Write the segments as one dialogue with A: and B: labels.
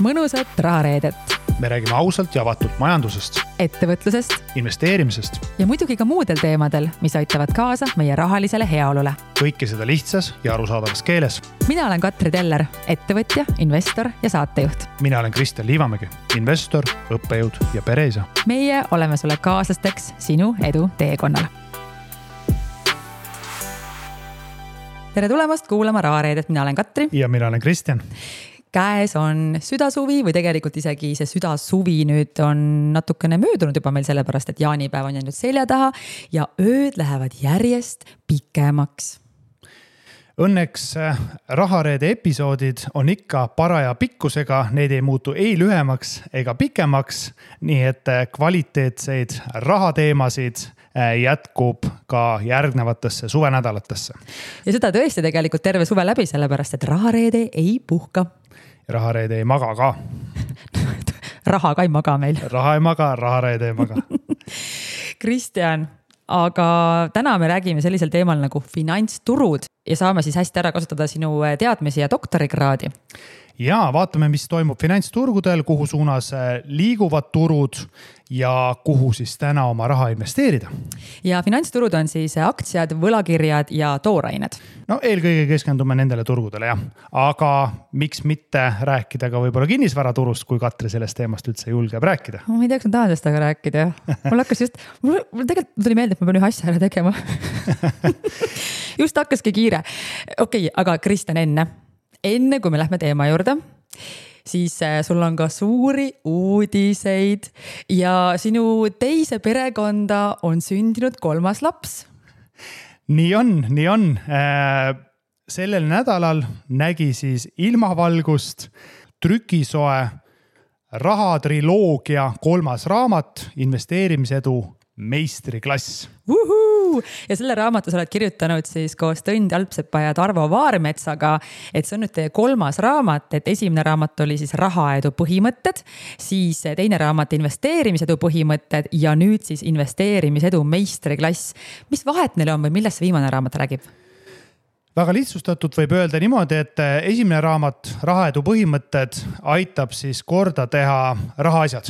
A: mõnusat rahareedet.
B: Me räägime ausalt ja avatult majandusest,
A: ettevõtlusest
B: investeerimisest
A: ja muidugi ka muudel teemadel, mis aitavad kaasa meie rahalisele heaolule.
B: Kõike seda lihtsas ja arusaadavas keeles.
A: Mina olen Katri Teller, ettevõtja, investor ja saatejuht.
B: Mina olen Kristjan Liivamägi, investor, õppejõud ja pereisa.
A: Meie oleme sulle kaaslasteks sinu edu teekonnal. Tere tulemast kuulama rahareedet, mina olen Katri.
B: Ja mina olen Kristjan.
A: Käes on südasuvi või tegelikult isegi see südasuvi nüüd on natukene möödunud juba meil sellepärast, et jaanipäev on jäänud selja taha ja ööd lähevad järjest pikemaks.
B: Õnneks rahareede episoodid on ikka paraja pikkusega, need ei muutu ei lühemaks ega pikemaks, nii et kvaliteetseid rahateemasid jätkub ka järgnevatesse suvenädalatesse.
A: Ja seda tõesti tegelikult terve suve läbi, sellepärast et rahareede ei puhka.
B: Rahareede ei maga ka.
A: Raha ka ei maga meil.
B: Raha ei maga, rahareede ei maga.
A: Kristjan, aga täna me räägime sellisel teemal nagu finantsturud ja saame siis hästi ära kasutada sinu teadmisi ja doktorikraadi.
B: Ja vaatame, mis toimub finantsturgudel, kuhu suunas liiguvad turud ja kuhu siis täna oma raha investeerida.
A: Ja finantsturud on siis aktsiad, võlakirjad ja toorained.
B: No eelkõige keskendume nendele turgudele, jah. Aga miks mitte rääkida ka võib-olla kinnisvaraturust, kui Katri sellest teemast üldse julgeb rääkida?
A: Ma ei teaks, ma tahan sellest aga rääkida. Mul tegelikult tuli meelde, et ma pean ühe asja ära tegema. Just hakkaski kiire. Okei, aga Kristjan enne kui me lähme teema juurde, siis sul on ka suuri uudiseid ja sinu teise perekonda on sündinud 3. laps.
B: Nii on. Sellel nädalal nägi siis ilmavalgust trükisoe rahatriloogia 3. raamat, investeerimisedu meistriklass.
A: Ja selle raamatu sa oled kirjutanud siis koos Tõnd Jalpsepa ja Tarvo Vaarmetsaga, et see on nüüd 3. raamat, et esimene raamat oli siis rahaedu põhimõtted, siis teine raamat investeerimisedu põhimõtted ja nüüd siis investeerimisedu meistriklass. Mis vahet neil on või millest see viimane raamat räägib?
B: Väga lihtsustatult võib öelda niimoodi, et esimene raamat rahaedu põhimõtted aitab siis korda teha rahaasjad.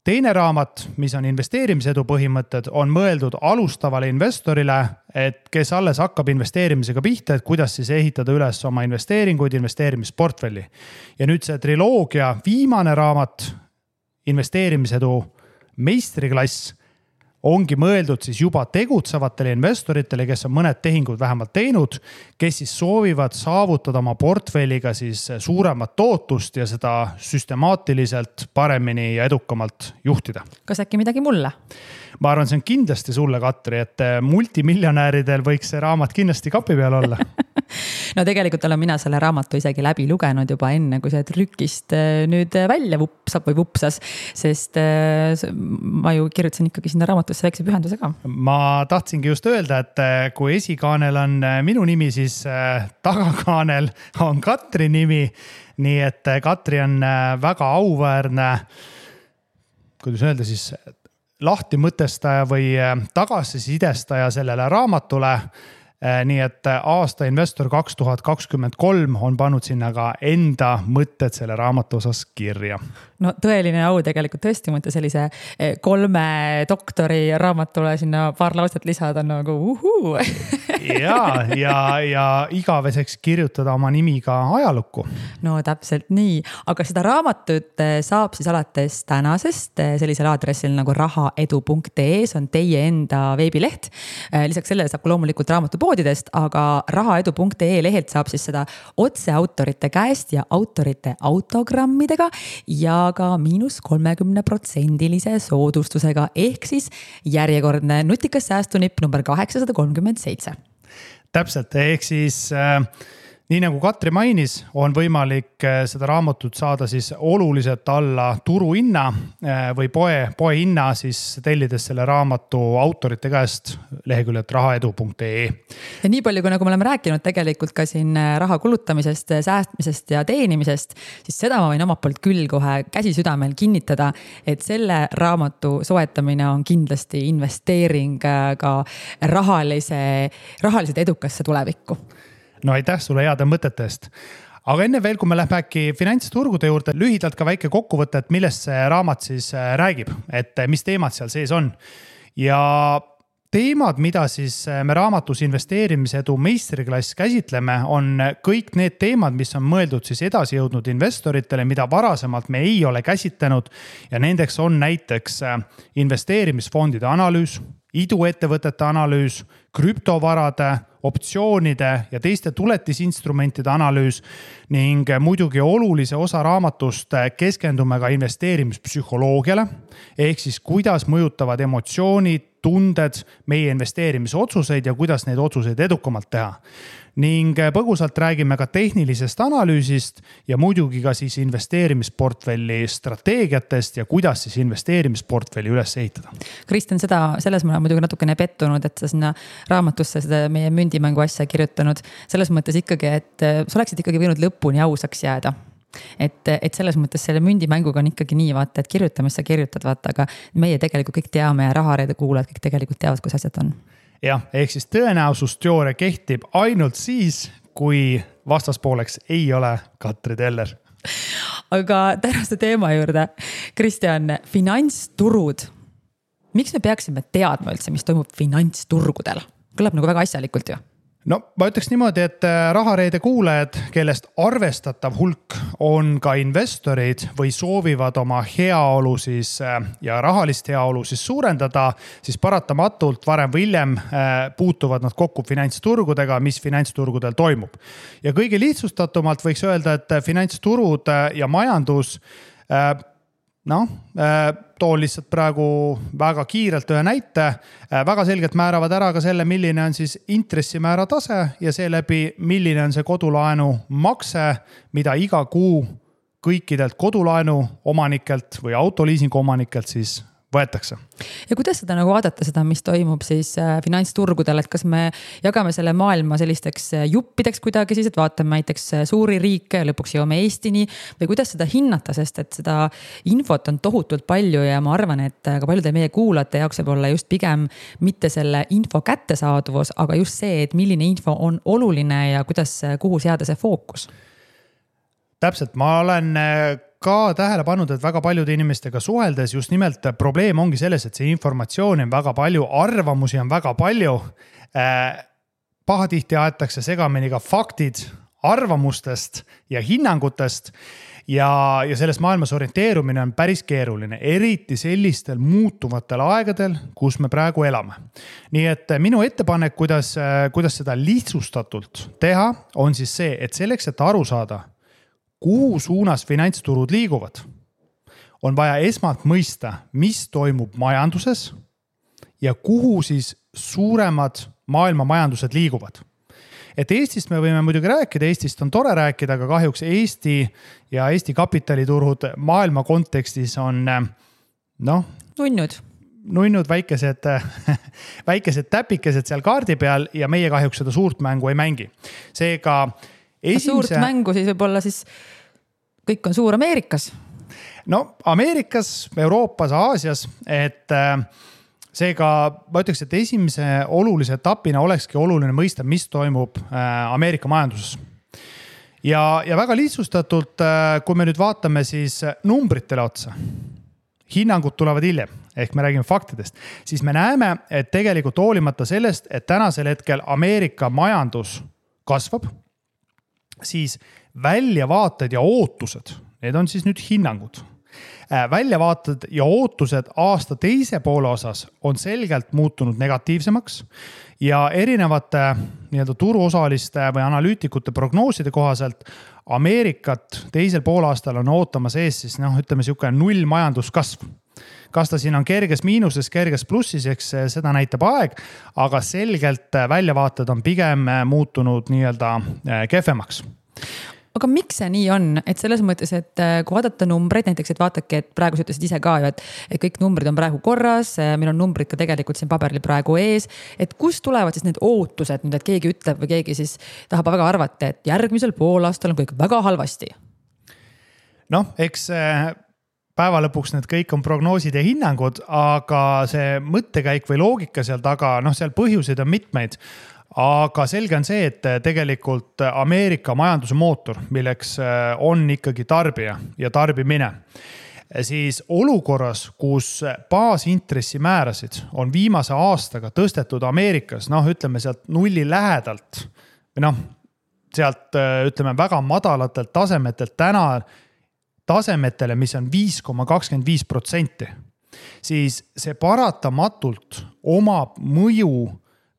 B: Teine raamat, mis on investeerimisedu põhimõtted, on mõeldud alustavale investorile, et kes alles hakkab investeerimisega pihta, et kuidas siis ehitada üles oma investeeringuid, investeerimisportfelli. Ja nüüd see triloogia viimane raamat, investeerimisedu meistriklass, ongi mõeldud siis juba tegutsevatele investoritele, kes on mõned tehingud vähemalt teinud, kes siis soovivad saavutada oma portfelliga siis suuremat tootust ja seda süstemaatiliselt paremini ja edukamalt juhtida.
A: Kas äkki midagi mulle?
B: Ma arvan, see on kindlasti sulle, Katri, et multimiljonääridel võiks see raamat kindlasti kapi peal olla.
A: No tegelikult olen mina selle raamatu isegi läbi lugenud juba enne, kui see trükist nüüd välja vupsas, sest ma ju kirjutasin ikkagi sinna raamatusse väikse pühendusega.
B: Ma tahtsingi just öelda, et kui esikaanel on minu nimi, siis tagakaanel on Katri nimi, nii et Katri on väga auväärne, kuidas öelda siis, lahti mõtestaja või tagasisidestaja sellele raamatule. Nii et aasta investor 2023 on pannud sinna ka enda mõtted selle raamatu osas kirja.
A: No tõeline au tegelikult tõesti mõte sellise 3 doktori raamatule sinna paar lauset lisada nagu uhuu.
B: ja igaveseks kirjutada oma nimi ka ajalukku.
A: No täpselt nii, aga seda raamatut saab siis alates tänasest sellisel aadressil nagu rahaedu.ee, see on teie enda veebileht. Lisaks sellele saab loomulikult raamatupoodidest, aga rahaedu.ee lehelt saab siis seda otse autorite käest ja autorite autogrammidega ja ka -30% soodustusega ehk siis järjekordne nutikas säästunipp number 837.
B: Täpselt, ehk siis nii nagu Katri mainis, on võimalik seda raamatut saada siis oluliselt alla turuhinna või poe hinna siis tellides selle raamatu autorite käest leheküljelt rahaedu.ee.
A: Ja nii palju, kui nagu me oleme rääkinud tegelikult ka siin raha kulutamisest, säästmisest ja teenimisest, siis seda ma võin omalt poolt küll kohe käsi südamel kinnitada, et selle raamatu soetamine on kindlasti investeering ka rahaliselt edukasse tulevikku.
B: No aitäh sulle heade mõtete eest. aga enne veel, kui me lähme äkki finantsturgude juurde, lühidalt ka väike kokkuvõte, et millest see raamat siis räägib, et mis teemad seal sees on. Ja teemad, mida siis me raamatus investeerimise edu meistriklass käsitleme, on kõik need teemad, mis on mõeldud siis edasi jõudnud investoritele, mida varasemalt me ei ole käsitlenud. Ja nendeks on näiteks investeerimisfondide analüüs, iduettevõtete analüüs, krüptovarade, optsioonide ja teiste tuletisinstrumentide analüüs ning muidugi olulise osa raamatust keskendume ka investeerimispsühholoogiale ehk siis kuidas mõjutavad emotsioonid, tunded meie investeerimisotsuseid ja kuidas neid otsuseid edukamalt teha. Ning põgusalt räägime ka tehnilisest analüüsist ja muidugi ka siis investeerimisportfelli strateegiatest ja kuidas siis investeerimisportfelli üles ehitada.
A: Kristjan, selles ma olen muidugi natukene pettunud, et sa sinna raamatusse seda meie mündimängu asja kirjutanud. Selles mõttes ikkagi, et sa oleksid ikkagi võinud lõpuni ausaks jääda. Et selles mõttes selle mündimänguga on ikkagi nii, vaata, et kirjuta, mis sa kirjutad, vaata, aga meie tegelikult kõik teame ja rahareede kuulajad kõik tegelikult teavad, kus asjad on.
B: Jah, ehk siis tõenäosusteooria kehtib ainult siis, kui vastaspooleks ei ole Katri Teller.
A: Aga tänaste teema juurde. Kristjan, finantsturud. Miks me peaksime teadma üldse, mis toimub finantsturgudel? Kõlab nagu väga asjalikult ju.
B: No ma ütleks niimoodi, et rahareede kuulajad, kellest arvestatav hulk on ka investorid või soovivad oma heaolu siis ja rahalist heaolu siis suurendada, siis paratamatult varem või hiljem puutuvad nad kokku finantsturgudega, mis finantsturgudel toimub. Ja kõige lihtsustatumalt võiks öelda, et finantsturud ja majandus toon lihtsalt praegu väga kiirelt ühe näite, väga selgelt määravad ära ka selle, milline on siis intressimäära tase ja seeläbi, milline on see kodulaenu makse, mida iga kuu kõikidelt kodulaenu omanikelt või autoliisingu omanikelt siis võetakse.
A: Ja kuidas seda nagu vaadata seda, mis toimub siis finantsturgudel, et kas me jagame selle maailma sellisteks juppideks kuidagi siis, et vaatame näiteks suuri riike ja lõpuks jõuame Eestini või kuidas seda hinnata, sest et seda infot on tohutult palju ja ma arvan, et ka paljude meie kuulajate jaoks võib olla just pigem mitte selle info kättesaadavus, aga just see, et milline info on oluline ja kuidas, kuhu seada see fookus.
B: Täpselt, ma olen ka tähele pannud, et väga paljude inimestega suheldes just nimelt probleem ongi selles, et see informatsioon on väga palju, arvamusi on väga palju. Pahatihti aetakse segamini ka faktid arvamustest ja hinnangutest ja selles maailmas orienteerumine on päris keeruline, eriti sellistel muutuvatel aegadel, kus me praegu elame. Nii et minu ettepanek, kuidas seda lihtsustatult teha, on siis see, et selleks, et aru saada, kuhu suunas finantsturud liiguvad, on vaja esmalt mõista, mis toimub majanduses ja kuhu siis suuremad maailma majandused liiguvad. Et Eestist me võime muidugi rääkida, Eestist on tore rääkida, aga kahjuks Eesti ja Eesti kapitaliturud maailma kontekstis on nunnud väikesed täpikesed seal kaardi peal ja meie kahjuks seda suurt mängu ei mängi. Seega
A: suurt mängu siis võib-olla siis kõik on suur Ameerikas?
B: No Ameerikas, Euroopas, Aasias, et seega ma ütleks, et esimese olulise etapina olekski oluline mõista, mis toimub Ameerika majanduses. Ja väga lihtsustatult, kui me nüüd vaatame siis numbritele otsa, hinnangud tulevad hiljem, ehk me räägime faktidest, siis me näeme, et tegelikult hoolimata sellest, et tänasel hetkel Ameerika majandus kasvab, siis väljavaated ja ootused, need on siis nüüd hinnangud. Väljavaated ja ootused aasta teise poole osas on selgelt muutunud negatiivsemaks ja erinevate turuosaliste või analüütikute prognooside kohaselt Ameerikat teisel poolaastal on ootamas ees siis ütleme niisugune 0 majanduskasv. Kas ta siin on kerges miinuses, kerges plussis, eks seda näitab aeg, aga selgelt väljavaated on pigem muutunud kehvemaks.
A: Aga miks see nii on? Et selles mõttes, et kui vaadata numbreid, näiteks, et vaatake, et praegu sa ütlesid ise ka ju, et kõik numbrid on praegu korras, meil on numbrid ka tegelikult siin paberil praegu ees, et kust tulevad siis need ootused, nüüd, et keegi ütleb või keegi siis tahab väga arvata, et järgmisel poolaastal on kõik väga halvasti?
B: Eks päeva lõpuks need kõik on prognoosid ja hinnangud, aga see mõttekäik või loogika seal taga, seal põhjuseid on mitmeid. aga selge on see, et tegelikult Ameerika majanduse mootor, milleks on ikkagi tarbija ja tarbimine, siis olukorras, kus baasintressimäärasid on viimase aastaga tõstetud Ameerikas, ütleme sealt nulli lähedalt või sealt ütleme väga madalatelt tasemetelt täna tasemetele, mis on 5,25%, siis see paratamatult omab mõju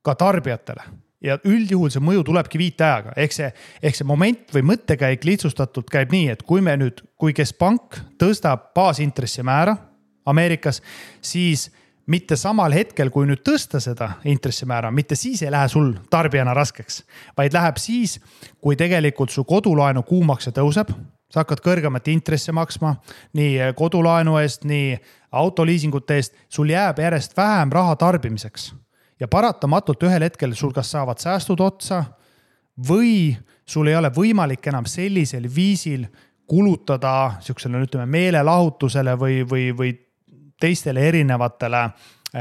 B: ka tarbijatele. Ja üldjuhul see mõju tulebki viiteajaga. Ehk see moment või mõttekäik lihtsustatult käib nii, et kui keskpank tõstab baasintressimäära Ameerikas, siis mitte samal hetkel, kui nüüd tõsta seda intressimäära, mitte siis ei lähe sul tarbijana raskeks, vaid läheb siis, kui tegelikult su kodulaenu kuumakse tõuseb, sa hakkad kõrgemat intressi maksma, nii kodulaenu eest, nii autoliisingute eest, sul jääb järjest vähem raha tarbimiseks. Ja paratamatult ühel hetkel sul kas saavad säästud otsa või sul ei ole võimalik enam sellisel viisil kulutada siuksele, ütleme, meelelahutusele või teistele erinevatele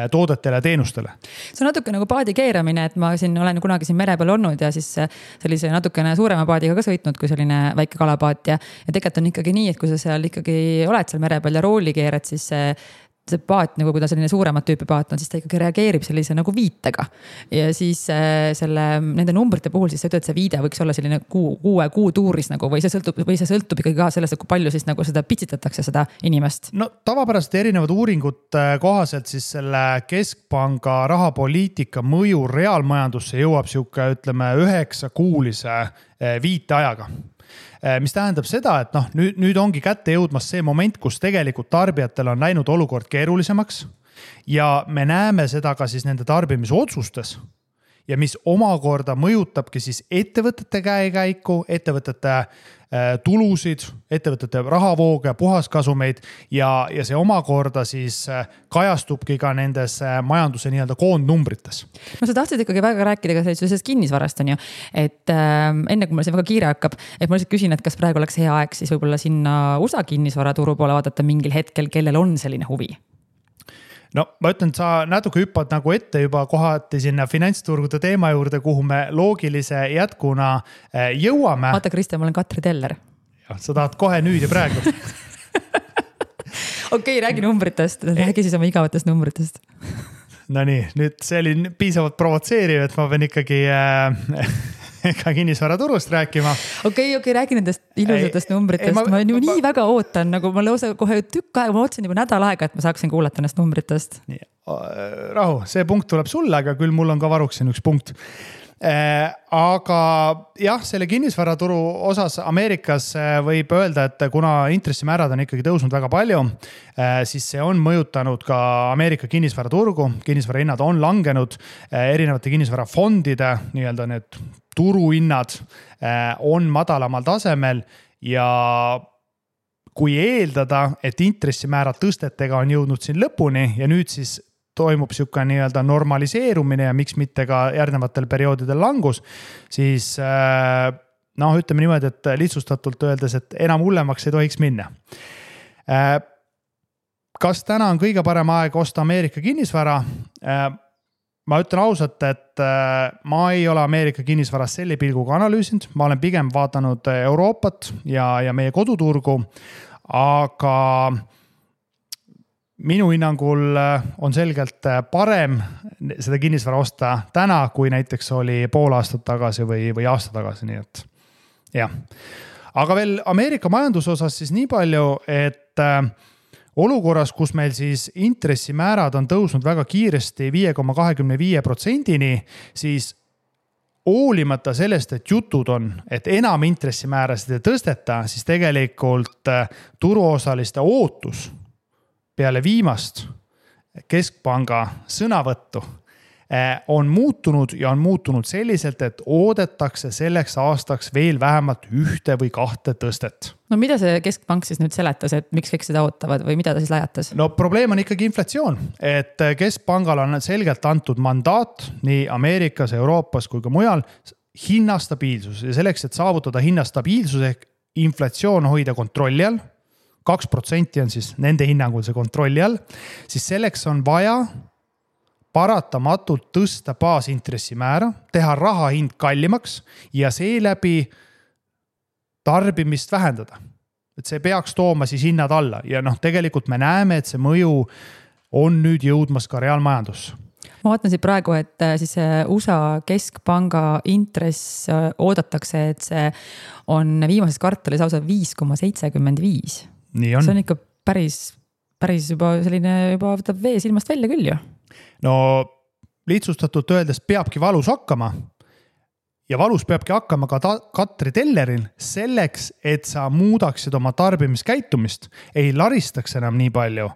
B: toodetele ja teenustele.
A: See on natuke nagu paadi keeramine, et ma olen kunagi siin mere peal olnud ja siis sellise natukene suurema paadiga ka sõitnud, kui selline väike kalapaat ja tegelikult on ikkagi nii, et kui sa seal ikkagi oled seal mere peal ja rooli keerad, siis see paat, nagu kui ta selline suuremat tüüpi paat on, siis ta ikkagi reageerib sellise nagu viitega. Ja siis nende numbrite puhul siis sa ütled, et see viide võiks olla selline kuu tuuris nagu, või see sõltub ikkagi ka sellest, kui palju siis nagu seda pitsitatakse seda inimest.
B: No tavapäraselt erinevad uuringud kohaselt siis selle keskpanga rahapoliitika mõju reaalmajandusse jõuab siuke, ütleme, 9-kuulise viiteajaga. Mis tähendab seda, et nüüd ongi kätte jõudmas see moment, kus tegelikult tarbijatel on läinud olukord keerulisemaks ja me näeme seda ka siis nende tarbimisotsustes ja mis omakorda mõjutabki siis ettevõtete käekäiku, ettevõtete tulusid, ettevõtete rahavooge, puhaskasumeid ja see omakorda siis kajastubki ka nendes majanduse nii-öelda koondnumbrites.
A: No sa tahtsid ikkagi väga rääkida ka sellisest kinnisvarast on ju, et enne kui mul see väga kiire hakkab, et ma lihtsalt küsin, et kas praegu oleks hea aeg siis võib-olla sinna USA kinnisvaraturu poole vaadata mingil hetkel, kellel on selline huvi?
B: No ma ütlen, sa natuke hüppad nagu ette juba kohati sinna finantsturgude teema juurde, kuhu me loogilise jätkuna jõuame.
A: Vaata, Kristjan, ma olen Katri Teller.
B: Ja, sa tahad kohe nüüd ja praegu.
A: Okei, räägi numbritest. Räägi siis oma igavatest numbritest.
B: No nii, nüüd see oli piisavalt provotseeriv, et ma pean ikkagi ka kinnisvaraturust rääkima.
A: Okei, räägi nendest ilusatest numbritest. Ma nii väga ootan, nagu ma lausa kohe tükk aega, ma otsin juba nädal aega, et ma saaksin kuulata nendest numbritest.
B: Nii, rahu, see punkt tuleb sulle, aga küll mul on ka varuksin üks punkt. Aga jah, selle kinnisvaraturu osas Ameerikas võib öelda, et kuna intressimäärad on ikkagi tõusnud väga palju, siis see on mõjutanud ka Ameerika kinnisvaraturgu. Kinnisvarahinnad on langenud, erinevate kinnisvarafondide, nii-öelda need turuhinnad on madalamal tasemel ja kui eeldada, et intressimäärad tõstetega on jõudnud siin lõpuni ja nüüd siis toimub siuke nii-öelda normaliseerumine ja miks mitte ka järgnevatel perioodidel langus, siis ütleme niimoodi, et lihtsustatult öeldes, et enam hullemaks ei tohiks minna. Kas täna on kõige parem aeg osta Ameerika kinnisvara? Ma ütlen ausalt, et ma ei ole Ameerika kinnisvaras selle pilguga analüüsinud, ma olen pigem vaadanud Euroopat ja meie koduturgu, aga minu hinnangul on selgelt parem seda kinnisvara osta täna, kui näiteks oli pool aastat tagasi või aasta tagasi, nii et jah. Aga veel Ameerika majanduse osas siis nii palju, et olukorras, kus meil siis intressimäärad on tõusnud väga kiiresti 5,25%-ni, siis hoolimata sellest, et jutud on, et enam intressimäärasid ei tõsteta, siis tegelikult turuosaliste ootus peale viimast keskpanga sõnavõttu on muutunud selliselt, et oodetakse selleks aastaks veel vähemalt 1 või 2 tõstet.
A: No mida see keskpank siis nüüd seletas, et miks kõik seda ootavad või mida ta siis lajatas?
B: No probleem on ikkagi inflatsioon, et keskpangal on selgelt antud mandaat nii Ameerikas, Euroopas kui ka mujal hinnastabiilsus ja selleks, et saavutada hinnastabiilsus ehk inflatsioon hoida kontrolli all, 2% on siis nende hinnangul see kontrolli all, siis selleks on vaja paratamatult tõsta baasintressimäära, teha raha hind kallimaks ja seeläbi tarbimist vähendada. Et see peaks tooma siis hinnad alla ja tegelikult me näeme, et see mõju on nüüd jõudmas ka reaalmajandusse.
A: Ma vaatan siit praegu, et siis USA keskpanga intress oodatakse, et see on viimases kvartalis lausa 5,75.
B: Nii on.
A: See on ikka päris juba selline, juba võtab vee silmast välja küll ju.
B: No lihtsustatult öeldes peabki valus hakkama ja valus peabki hakkama ka Katri Telleril selleks, et sa muudaksid oma tarbimiskäitumist, ei laristaks enam nii palju,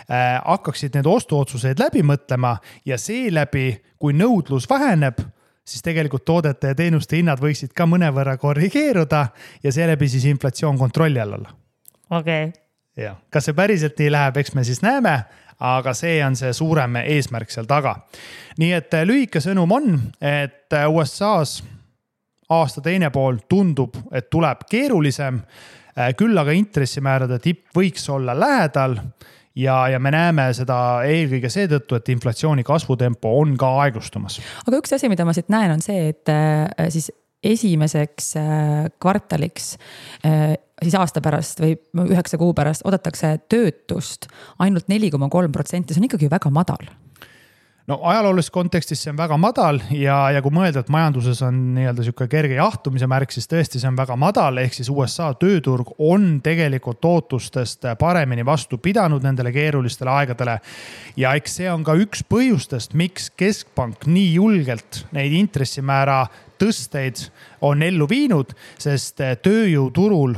B: hakkaksid need ostuotsuseid läbi mõtlema ja seeläbi, kui nõudlus väheneb, siis tegelikult toodete ja teenuste hinnad võiksid ka mõnevõrra korrigeeruda ja seeläbi siis inflatsioon kontrolli all olla.
A: Okay.
B: Ja, kas see päriselt nii läheb, eks me siis näeme, aga see on see suurem eesmärk seal taga. Nii et lühike sõnum on, et USA's aasta teine pool tundub, et tuleb keerulisem, küll aga intressimäärade tipp võiks olla lähedal ja me näeme seda eelkõige seetõttu, et inflatsiooni kasvutempo on ka aeglustumas.
A: Aga üks asi, mida ma siit näen, on see, et siis esimeseks kvartaliks siis aasta pärast või 9 kuu pärast oodatakse töötust ainult 4,3%, see on ikkagi väga madal.
B: No ajaloolises kontekstis see on väga madal ja kui mõelda, et majanduses on nii-öelda siuke kerge jahtumise märk, siis tõesti see on väga madal, ehk siis USA tööturg on tegelikult ootustest paremini vastu pidanud nendele keerulistele aegadele. Ja eks see on ka üks põhjustest, miks keskpank nii julgelt neid intressimäära tõsteid on ellu viinud, sest tööjõuturul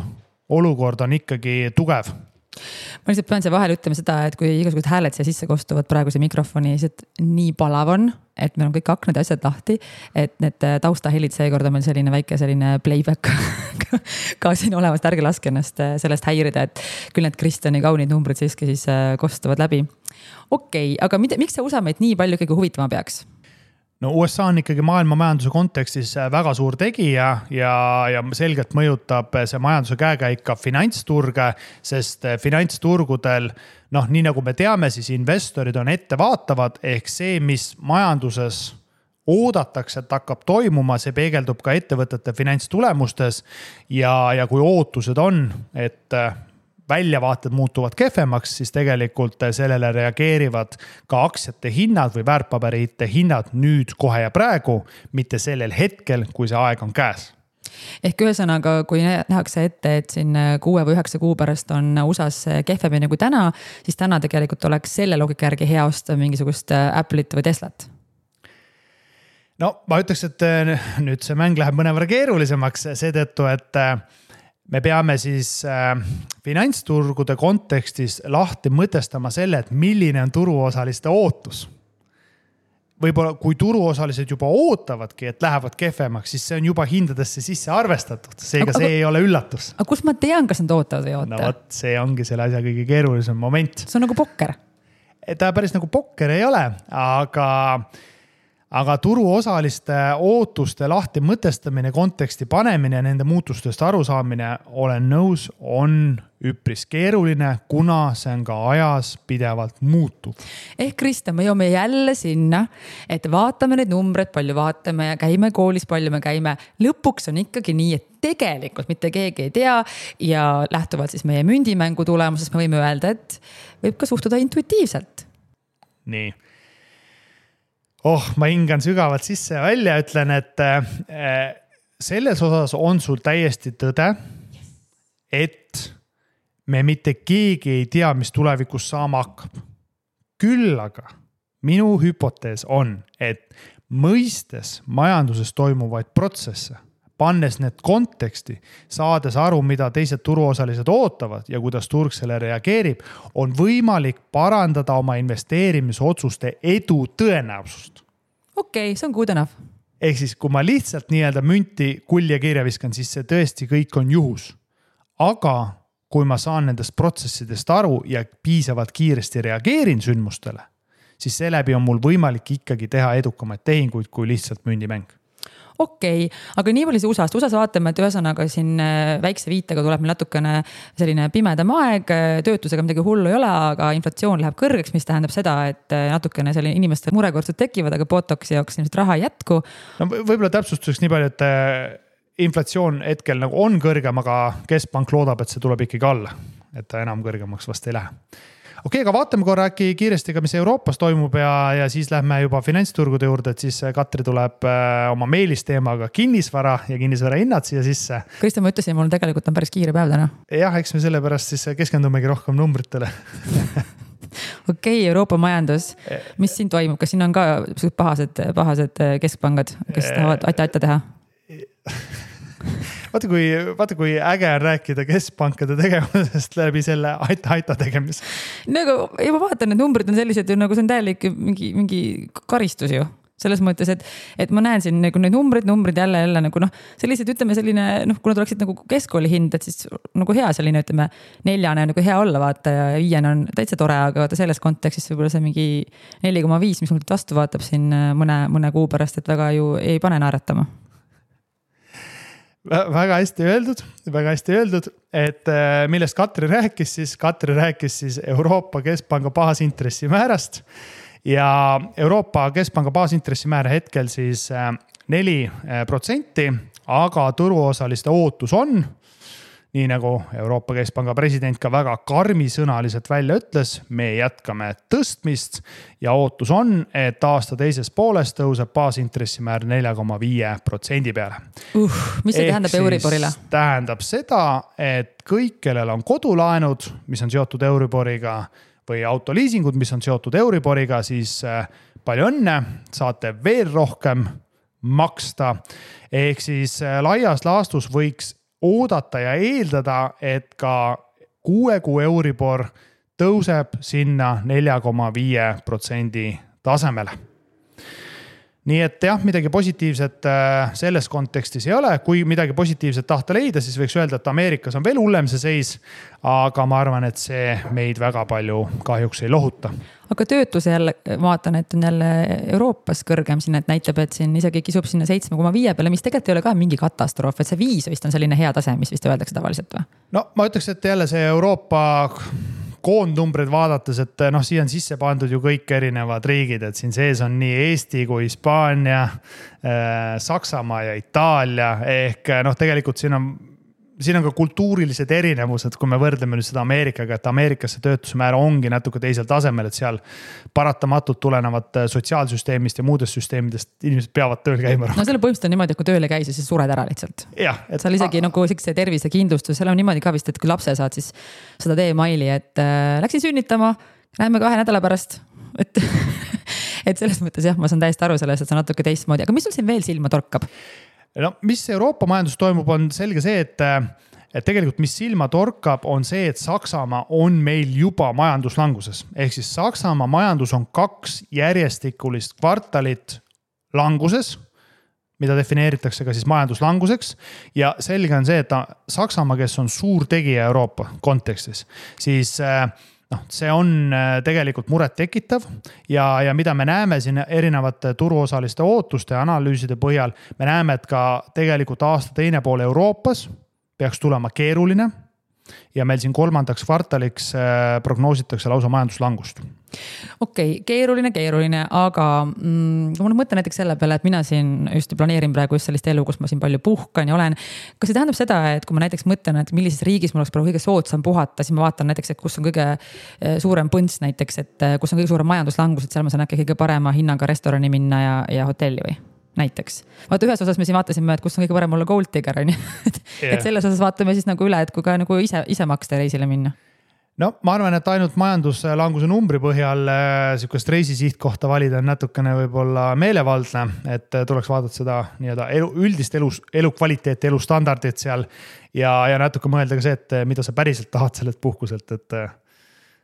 B: olukord on ikkagi tugev.
A: Ma lihtsalt pean see vahel ütlema seda, et kui igasugused hääled siia sisse kostuvad praeguse mikrofoni, siis nii palav on, et meil on kõik aknad ja asjad lahti, et need taustahelid seekord on meil selline väike playback ka siin olemas, ärge laske ennast sellest häirida, et küll need Kristjani kaunid numbrid siiski siis kostuvad läbi. Okei, aga miks see USA meid nii palju kõige huvitama peaks?
B: No USA on ikkagi maailma majanduse kontekstis väga suur tegija ja selgelt mõjutab see majanduse käekäik ka finantsturge, sest finantsturgudel, nii nagu me teame, siis investorid on ettevaatavad, ehk see, mis majanduses oodatakse, et hakkab toimuma, see peegeldub ka ettevõtete finantstulemustes ja kui ootused on, et väljavaated muutuvad kehvemaks, siis tegelikult sellele reageerivad ka aktsiate hinnad või väärtpaberite hinnad nüüd kohe ja praegu, mitte sellel hetkel, kui see aeg on käes.
A: Ehk ühesõnaga, kui nähakse ette, et siin 6 või 9 kuu pärast on USA's kehvemini kui täna, siis täna tegelikult oleks selle loogika järgi hea osta mingisugust Apple'it või Teslat.
B: No ma ütleks, et nüüd see mäng läheb mõnevõrra keerulisemaks seetõttu, et me peame siis finantsturgude kontekstis lahti mõtestama selle, et milline on turuosaliste ootus. Võib-olla kui turuosalised juba ootavadki, et lähevad kehvemaks, siis see on juba hindadesse sisse arvestatud. Seega see ei ole üllatus.
A: Aga kus ma tean, kas nad ootavad või oota?
B: No võt, see ongi selle asja kõige keerulisem moment.
A: See on nagu pokker.
B: Ta päris nagu pokker ei ole, aga turuosaliste ootuste lahti mõtestamine, konteksti panemine ja nende muutustest arusaamine, olen nõus, on üpris keeruline, kuna see on ka ajas pidevalt muutub.
A: Ehk Kristjan, me jõuame jälle sinna, et vaatame neid numbreid, palju vaatame ja käime koolis, palju me käime. Lõpuks on ikkagi nii, et tegelikult mitte keegi ei tea ja lähtuvalt siis meie mündimängu tulemusest me võime öelda, et võib ka suhtuda intuitiivselt.
B: Nii. Ma hingan sügavalt sisse ja välja, ütlen, et selles osas on sul täiesti tõde, et me mitte keegi ei tea, mis tulevikus saama hakkab. Küll aga minu hüpotees on, et mõistes majanduses toimuvaid protsesse, pannes need konteksti, saades aru, mida teised turuosalised ootavad ja kuidas turg selle reageerib, on võimalik parandada oma investeerimisotsuste edu tõenäosust.
A: Okei, see on good enough.
B: Ehk siis, kui ma lihtsalt nii-öelda münti kulje kirja viskan, siis see tõesti kõik on juhus. Aga kui ma saan nendest protsessidest aru ja piisavalt kiiresti reageerin sündmustele, siis seeläbi on mul võimalik ikkagi teha edukamaid tehinguid kui lihtsalt mündimäng.
A: okei, aga nii palju see USA-s vaatame, et ühesõnaga siin väikse viitega tuleb meil natukene selline pimedam aeg, töötusega midagi hullu ei ole, aga inflatsioon läheb kõrgeks, mis tähendab seda, et natukene selline inimeste murekordsud tekivad, aga Botoxi jaoks ilmselt raha ei jätku.
B: No võib-olla täpsustuseks nii palju, et inflatsioon hetkel nagu on kõrgem, aga keskpank loodab, et see tuleb ikkagi alla, et ta enam kõrgemaks vast ei lähe. Okei, aga vaatame korra äkki kiiresti ka, mis Euroopas toimub ja siis lähme juba finantsturgude juurde, et siis Katri tuleb oma meelisteemaga kinnisvara ja kinnisvara hinnad siia sisse.
A: Kristjan, ma ütlesin, mul tegelikult on päris kiire päev täna.
B: Jah, eks me sellepärast siis keskendumegi rohkem numbritele.
A: Okei, Euroopa majandus, mis siin toimub? Kas siin on ka pahased keskpangad, kes tahavad aita teha?
B: Vaata kui äge on rääkida keskpankade tegevusest läbi selle aita tegemise.
A: Nagu, ja ma vaatan, et numbrid on sellised ju, nagu see on täielik mingi karistus ju. Selles mõttes, et ma näen siin nagu need numbrid jälle nagu sellised, ütleme selline, kuna tuleksid nagu keskkooli hind, et siis nagu hea selline, ütleme 4 on nagu hea olla, vaata, ja 5 on täitsa tore, aga vaata selles kontekstis võib-olla see mingi 4,5, mis mul vastu vaatab siin mõne kuu pärast, et väga ju ei pane naeratama.
B: Väga hästi öeldud, et millest Katri rääkis siis Euroopa Keskpanga baasintressimäärast ja Euroopa Keskpanga baasintressimäär hetkel siis 4%, aga turuosaliste ootus on, nii nagu Euroopa Keskpanga president ka väga karmisõnaliselt välja ütles, me jätkame tõstmist ja ootus on, et aasta teises pooles tõuseb baasintressimäär 4,5% peale.
A: Mis see tähendab Euriborile?
B: Tähendab seda, et kõik, kellel on kodulaenud, mis on seotud Euriboriga või autoliisingud, mis on seotud Euriboriga, siis palju õnne, saate veel rohkem maksta. Ehk siis laias laastus võiks oodata ja eeldada, et ka 6 kuu Euribor tõuseb sinna 4,5% tasemele. Nii et jah, midagi positiivset selles kontekstis ei ole. Kui midagi positiivset tahta leida, siis võiks öelda, et Ameerikas on veel hullem see seis, aga ma arvan, et see meid väga palju kahjuks ei lohuta.
A: Aga töötuse jälle vaatan, et on jälle Euroopas kõrgem siin, et näitab, et siin isegi kisub sinna 7,5 peale, mis tegelikult ei ole ka mingi katastroof, et see 5 vist on selline hea tase, mis vist öeldakse tavaliselt või?
B: No ma ütleks, et jälle see Euroopa koondnumbrid vaadates, et siia on sisse pandud ju kõik erinevad riigid, et siin sees on nii Eesti kui Hispaania, Saksamaa ja Itaalia, ehk tegelikult siin on ka kultuurilised erinevused, kui me võrdleme nüüd seda Ameerikaga, et Ameerikas see töötusmäär ongi natuke teisel tasemel, et seal paratamatult tulenevad sotsiaalsüsteemist ja muudest süsteemidest inimesed peavad tööl käima.
A: No selle põhimõtteliselt on niimoodi, et kui tööle käi, siis sured ära lihtsalt.
B: Jah.
A: Seal isegi nagu see tervisekindlustus, seal on niimoodi ka vist, et kui lapse saad, siis seda teemaili, et läksin sünnitama, näeme 2 nädala pärast, et selles mõttes jah, ma saan täiesti aru sellest, et see on natuke teistmoodi, aga mis sul siin veel silma torkab?
B: No, mis Euroopa majandus toimub, on selge see, et tegelikult mis silma torkab, on see, et Saksamaa on meil juba majanduslanguses. Ehk siis Saksamaa majandus on 2 järjestikulist kvartalit languses, mida defineeritakse ka siis majanduslanguseks. Ja selge on see, et Saksamaa, kes on suur tegija Euroopa kontekstis, siis see on tegelikult muret tekitav ja mida me näeme siin erinevate turuosaliste ootuste ja analüüside põhjal, me näeme, et ka tegelikult aasta teine pool Euroopas peaks tulema keeruline ja meil siin 3. kvartaliks prognoositakse lausa majanduslangust.
A: Okei, keeruline, aga ma mõtlen näiteks selle peale, et mina siin just planeerin praegu just sellist elu, kus ma siin palju puhkan ja olen. Kas see tähendab seda, et kui ma näiteks mõtlen, et millises riigis mul oleks praegu kõige soodsam puhata, siis ma vaatan näiteks, et kus on kõige suurem põnts näiteks, et kus on kõige suurem majanduslangus, et seal ma saan äkki kõige parema hinnaga restorani minna ja hotelli või? Näiteks. Vaata ühes osas me siin vaatasime, et kus on kõige parem olla Gold Digger, et selles osas vaatame siis nagu üle, et kui ka nagu ise maksta reisile minna.
B: No ma arvan, et ainult majanduslanguse numbri põhjal sihukest reisisihtkohta valida on natukene võib-olla meelevaldne, et tuleks vaadata seda üldist elukvaliteeti, elustandardit seal ja natuke mõelda ka see, et mida sa päriselt tahad sellelt puhkuselt, et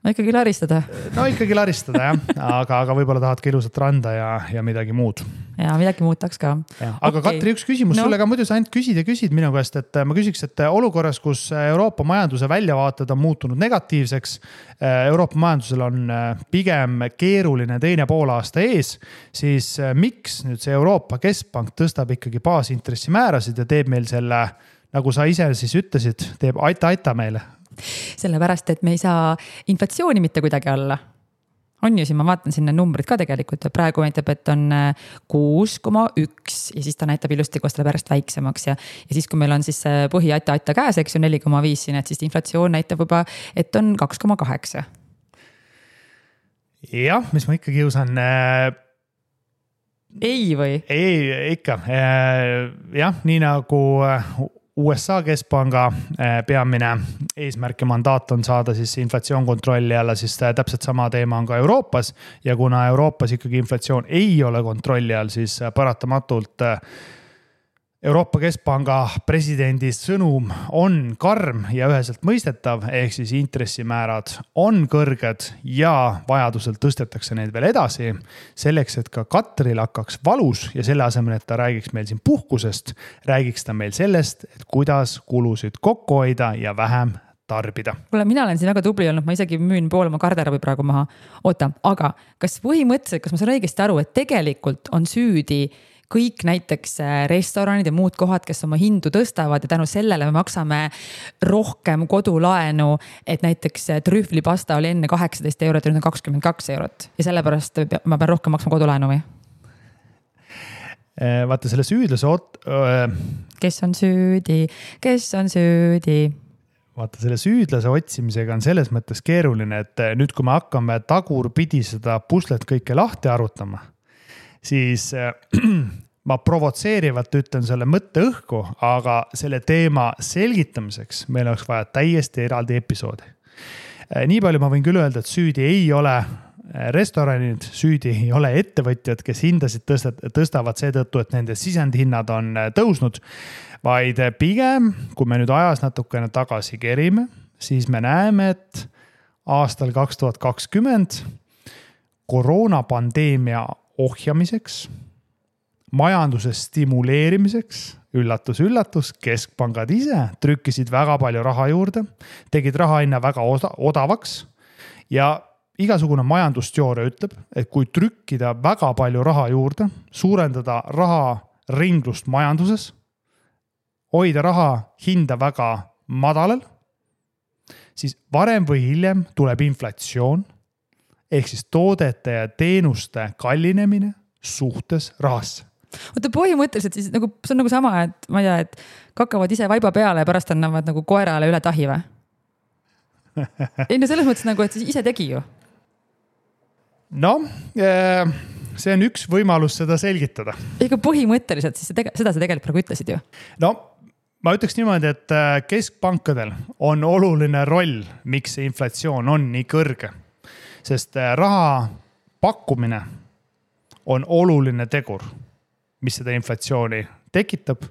A: no ikkagi laristada.
B: No ikkagi laristada jah, aga võib-olla tahad ka ilusat randa ja midagi muud.
A: Ja midagi muud tahaks ka.
B: Aga Katri, üks küsimus sulle ka, muidu sa ainult küsid minu käest, et ma küsiks, et olukorras, kus Euroopa majanduse väljavaated on muutunud negatiivseks, Euroopa majandusel on pigem keeruline teine poolaasta ees, siis miks nüüd see Euroopa Keskpank tõstab ikkagi baasintressimäärasid ja teeb meil selle, nagu sa ise siis ütlesid, teeb aita meile?
A: Sellepärast, et me ei saa inflatsiooni mitte kuidagi alla. On ju, siin ma vaatan sinna numbrid ka tegelikult, praegu näitab, et on 6,1 ja siis ta näitab ilusti, koos tuleb järjest väiksemaks ja siis, kui meil on siis põhi aita käes, eks ju 4,5 siin, et siis inflatsioon näitab juba, et on 2,8. Jah, mis ma ikka kiusan. Ei või? Ei, ikka. Jah, nii nagu USA Keskpanga peamine eesmärk ja mandaat on saada siis inflatsioon kontrolli alla, siis täpselt sama teema on ka Euroopas ja kuna Euroopas ikkagi inflatsioon ei ole kontrolli all, siis paratamatult Euroopa Keskpanga presidendi sõnum on karm ja üheselt mõistetav, ehk siis intressimäärad on kõrged ja vajadusel tõstetakse neid veel edasi, selleks, et ka Katril hakkaks valus ja selle asemel, et ta räägiks meil siin puhkusest, räägiks ta meil sellest, et kuidas kulusid kokku hoida ja vähem tarbida. Kuule, mina olen siin väga tubli olnud, ma isegi müün pool oma garderoobi praegu maha. Oota, aga kas põhimõtteliselt, kas ma saan õigesti aru, et tegelikult on süüdi kõik näiteks restoranid ja muud kohad, kes oma hindu tõstavad ja tänu sellele me maksame rohkem kodulaenu, et näiteks trühvlipasta oli enne 18 eurot ja nüüd on 22 eurot ja sellepärast ma pean rohkem maksma kodulaenu või? Vaata selle süüdlase Kes on süüdi? Vaata selle süüdlase otsimisega on selles mõttes keeruline, et nüüd kui me hakkame tagurpidi seda puslet kõike lahti arutama, siis ma provotseerivalt ütlen selle mõtte õhku, aga selle teema selgitamiseks meil oleks vaja täiesti eraldi episoodi. Nii palju ma võin küll öelda, et süüdi ei ole restoranid, süüdi ei ole ettevõtjad, kes hindasid tõstavad seetõttu, et nende sisendhinnad on tõusnud, vaid pigem, kui me nüüd ajas natukene tagasi kerime, siis me näeme, et aastal 2020 koroonapandeemia ohjamiseks, majanduse stimuleerimiseks, üllatus, keskpangad ise trükkisid väga palju raha juurde, tegid raha hinna väga odavaks ja igasugune majandusteooria ütleb, et kui trükkida väga palju raha juurde, suurendada raha ringlust majanduses, hoida raha hinda väga madalal, siis varem või hiljem tuleb inflatsioon, ehk siis toodete ja teenuste kallinemine suhtes rahasse. Oota, põhimõtteliselt siis nagu, see on nagu sama, et ma ei tea, et kakavad ise vaiba peale ja pärast annavad nagu koerale üle tahi või? Ei no selles mõttes nagu, et siis ise tegi ju. No, see on üks võimalus seda selgitada. Ega põhimõtteliselt siis seda sa tegelikult praegu ütlesid ju. No, ma ütleks niimoodi, et keskpankadel on oluline roll, miks see inflatsioon on nii kõrge. Sest raha pakkumine on oluline tegur, mis seda inflatsiooni tekitab.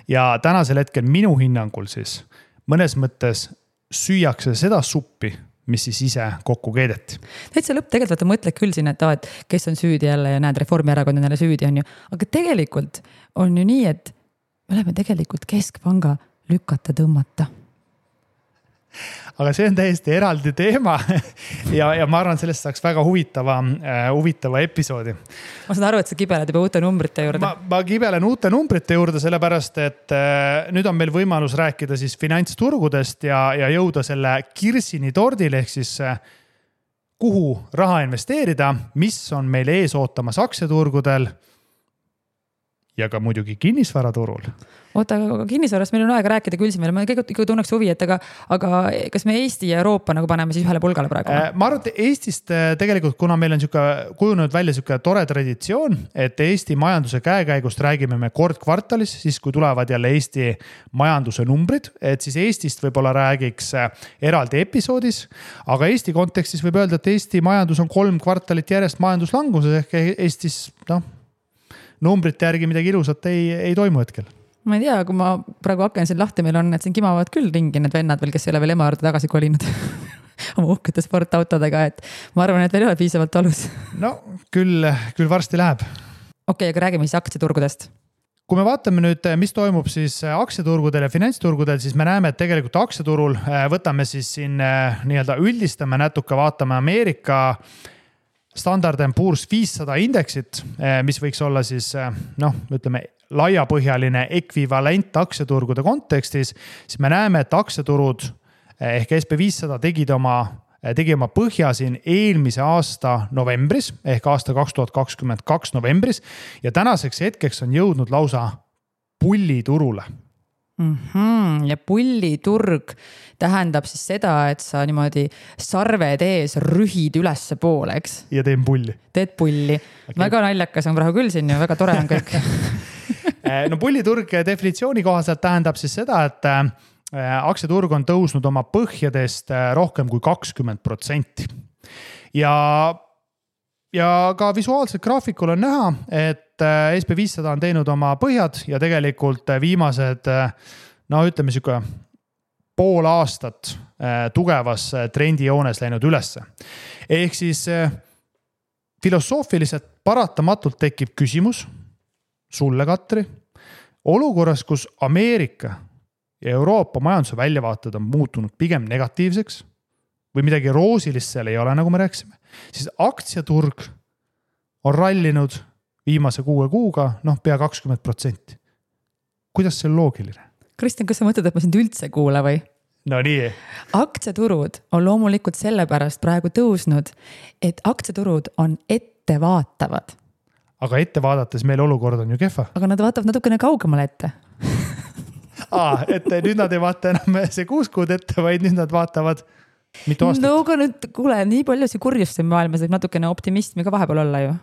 A: Ja tänasel hetkel minu hinnangul siis mõnes mõttes süüakse seda suppi, mis siis ise kokku keedeti. Täitsa lõpp tegelikult mõtled küll siin, et kes on süüdi jälle ja näed, Reformierakond on jälle süüdi on ju. Aga tegelikult on ju nii, et me oleme tegelikult keskpanga lükata tõmmata. Aga see on täiesti eraldi teema ja ma arvan, sellest saaks väga huvitava episoodi. Ma saan aru, et sa kibeled juba uute numbrite juurde. Ma kibelen uute numbrite juurde, sellepärast, et nüüd on meil võimalus rääkida siis finantsturgudest ja jõuda selle kirsini tordile, ehk siis kuhu raha investeerida, mis on meil ees ootamas aktsiaturgudel ja ka muidugi kinnisvaraturul. Oota, aga kinnisvarast meil on aega rääkida küll siin veel. Ma ikka tunneks huvi, et aga kas me Eesti ja Euroopa nagu paneme siis ühele pulgale praegu? Ma arvan, et Eestist tegelikult, kuna meil on kujunenud välja tore traditsioon, et Eesti majanduse käekäigust räägime me kord kvartalis, siis kui tulevad jälle Eesti majanduse numbrid, et siis Eestist võib-olla räägiks eraldi episoodis, aga Eesti kontekstis võib öelda, et Eesti majandus on 3 kvartalit järjest majanduslanguses, ehk Eestis numbrite järgi midagi ilusat ei toimu hetkel. Ma ei tea, kui ma praegu hakken siin lahti, meil on, et siin kimavad küll ringi need vennad veel, kes ei ole veel ema juurde tagasi kolinud. oma uhkete sportautodega, et ma arvan, et veel ei ole piisavalt valus.
B: No küll varsti läheb.
A: Okei, aga räägime siis aktsiaturgudest.
B: Kui me vaatame nüüd, mis toimub siis aktsiaturgudel ja finantsturgudel, siis me näeme, et tegelikult aktsiaturul võtame siis siin nii-öelda üldistame natuke, vaatame Ameerika Standard & Poor's 500 indeksit, mis võiks olla siis ütleme laiapõhjaline ekvivalent aktsiaturgude kontekstis, siis me näeme, et aktsiaturud ehk SP500 tegi oma põhja siin eelmise aasta novembris ehk aasta 2022 novembris ja tänaseks hetkeks on jõudnud lausa pulliturule.
A: Ja pulliturg tähendab siis seda, et sa niimoodi sarved ees rühid ülesse poole, eks?
B: Ja teen pulli.
A: Teed pulli. Okay. Väga naljakas on praegu küll siin ja väga tore on kõik.
B: No pulliturg definitsiooni kohaselt tähendab siis seda, et aktsiaturg on tõusnud oma põhjadest rohkem kui 20%. Ja ka visuaalselt graafikul on näha, et SP500 on teinud oma põhjad ja tegelikult viimased, ütleme siuke pool aastat tugevas trendijoones läinud ülesse. Ehk siis filosoofiliselt paratamatult tekib küsimus sulle, Katri, olukorras, kus Ameerika ja Euroopa majanduse väljavaated on muutunud pigem negatiivseks või midagi roosilist seal ei ole, nagu me rääkisime, siis aktsiaturg on rallinud viimase 6 kuuga, pea 20%. Kuidas see on loogiline?
A: Kristjan, kas sa mõtled, et ma sind üldse kuula või?
B: No nii.
A: Aktsiaturud on loomulikult sellepärast praegu tõusnud, et aktsiaturud on ettevaatavad.
B: Aga ette vaadates meil olukord on ju kehva.
A: Aga nad vaatavad natukene kaugemale ette.
B: Et nüüd nad ei vaata enam see 6 kuud ette, vaid nüüd nad vaatavad mitu aastat.
A: No aga nüüd, kuule, nii palju see kurjust siin maailmas, et natukene optimismi ka vahepeal olla ju.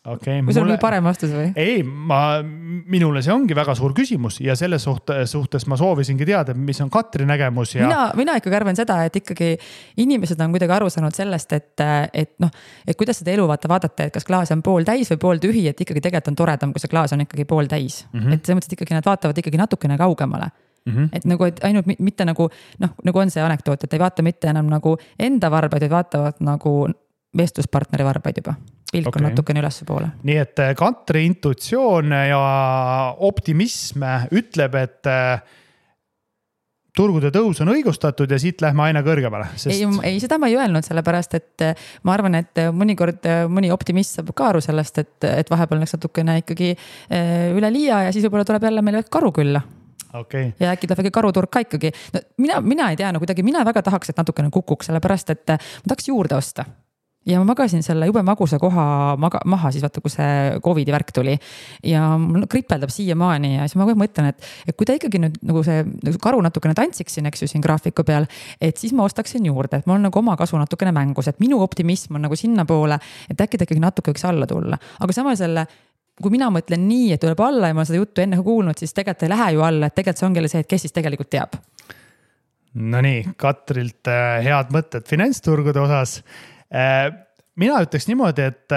B: Okay,
A: või sul oli parem vastus või?
B: Ei, minule see ongi väga suur küsimus ja selles suhtes ma soovisingi teada, mis on Katri nägemus. Ja...
A: Mina ikkagi arvan seda, et ikkagi inimesed on kuidagi aru saanud sellest, et kuidas seda elu vaadata, et kas klaas on pool täis või pool tühi, et ikkagi tegelikult on toredam, kui see klaas on ikkagi pool täis. Et selles mõttes, et ikkagi nad vaatavad ikkagi natukene kaugemale. Et nagu, et ainult mitte nagu on see anekdoot, et ei vaata mitte enam nagu enda varbaid, vaid vaatavad nagu vestluspartneri varbaid juba. Pilk on natukene ülesse poole.
B: Nii et Katri intuitsioon ja optimism ütleb, et turgude tõus on õigustatud ja siit lähme aina kõrgemale.
A: Sest... Ei, seda ma ei öelnud sellepärast, et ma arvan, et mõnikord mõni optimist saab ka aru sellest, et vahepeal läks natukene ikkagi üle liia ja siis võib-olla tuleb jälle meile karu külla.
B: Okay.
A: Ja äkki tuleb karuturg ka ikkagi. No, mina ei tea, kuidagi mina väga tahaks, et natukene kukuks, sellepärast, et ma tahaks juurde osta. Ja ma magasin selle jube magusa koha maha siis vaata, kui see COVID-i värk tuli ja mul kripeldab siiamaani ja siis ma mõtlen, et kui ta ikkagi nüüd nagu see karu natukene tantsiks siin, eks ju siin graafiku peal, et siis ma ostaksin juurde, et mul on nagu oma kasu natukene mängus, et minu optimism on nagu sinna poole, et äkki ta ikkagi natuke võiks alla tulla. Aga samal selle, kui mina mõtlen nii, et tuleb alla ja ma seda juttu enne kuulnud, siis tegelikult ei lähe ju alla, et tegelikult see ongi see, et kes siis tegelikult teab.
B: No nii, Katrilt head mõtted finantsturgude osas. Mina ütleks niimoodi, et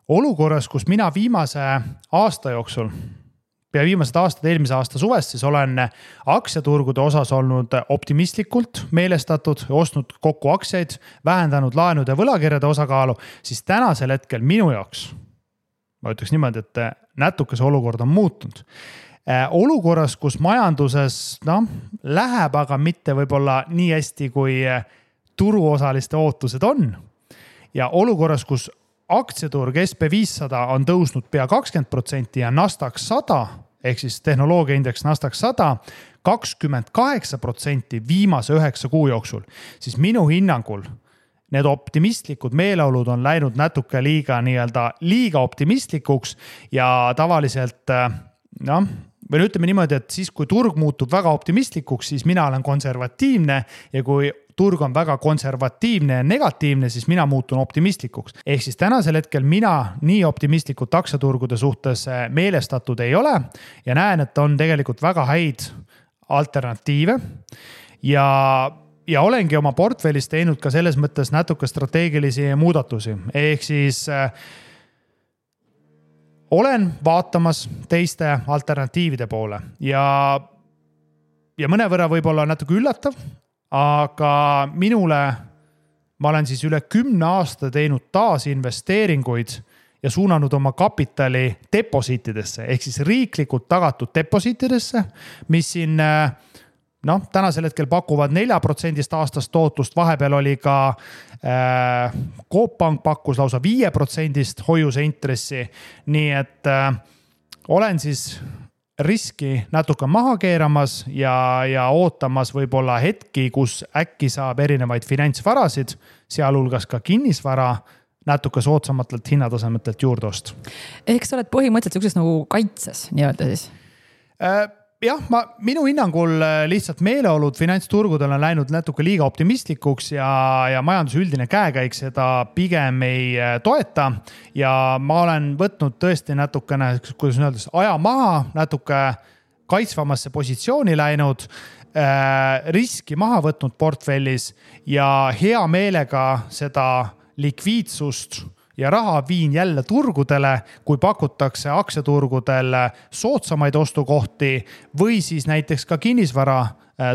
B: olukorras, kus mina viimase aasta jooksul, pea viimased aastad eelmise aasta suvest, siis olen aktsiaturgude osas olnud optimistlikult meelestatud, ostnud kokku aktsiaid, vähendanud laenude võlakirjade osakaalu, siis tänasel hetkel minu jaoks, ma ütleks niimoodi, et natuke see olukord on muutunud. Olukorras, kus majanduses läheb, aga mitte võib-olla nii hästi, kui turuosaliste ootused on. Ja olukorras, kus aktsiaturg SP500 on tõusnud pea 20% ja Nasdaq 100, ehk siis tehnoloogiaindeks Nasdaq 100, 28% viimase 9 kuu jooksul, siis minu hinnangul need optimistlikud meeleolud on läinud natuke liiga optimistlikuks ja tavaliselt, või ütleme niimoodi, et siis kui turg muutub väga optimistlikuks, siis mina olen konservatiivne ja kui turg on väga konservatiivne ja negatiivne, siis mina muutun optimistlikuks. Ehk siis tänasel hetkel mina nii optimistlikult aktsiaturgude suhtes meelestatud ei ole ja näen, et on tegelikult väga häid alternatiive ja olengi oma portfellis teinud ka selles mõttes natuke strateegilisi muudatusi. Ehk siis olen vaatamas teiste alternatiivide poole ja mõnevõrra võib olla natuke üllatav, aga minule ma olen siis üle 10 aasta teinud taasinvesteeringuid ja suunanud oma kapitali deposiitidesse ehk siis riiklikult tagatud deposiitidesse, mis siin tänasel hetkel pakuvad 4% aastast tootlust, vahepeal oli ka Coop Pank pakkus lausa 5% hoiuse intressi, nii et olen siis riski natuke maha keeramas ja ootamas võib-olla hetki, kus äkki saab erinevaid finantsvarasid, sealhulgas ka kinnisvara, natuke soodsamatelt hinnatasemetelt juurde ost.
A: Ehk sa oled põhimõtteliselt sellises nagu kaitses nii-öelda siis?
B: Jah, minu hinnangul lihtsalt meeleolud finantsturgudel on läinud natuke liiga optimistlikuks ja majanduse üldine käekäik seda pigem ei toeta. Ja ma olen võtnud tõesti natukene, kuidas öeldes, aja maha, natuke kaitsvamasse positsiooni läinud, riski maha võtnud portfellis ja hea meelega seda likviidsust ja raha viin jälle turgudele, kui pakutakse aktsiaturgudel soodsamaid ostukohti või siis näiteks ka kinnisvara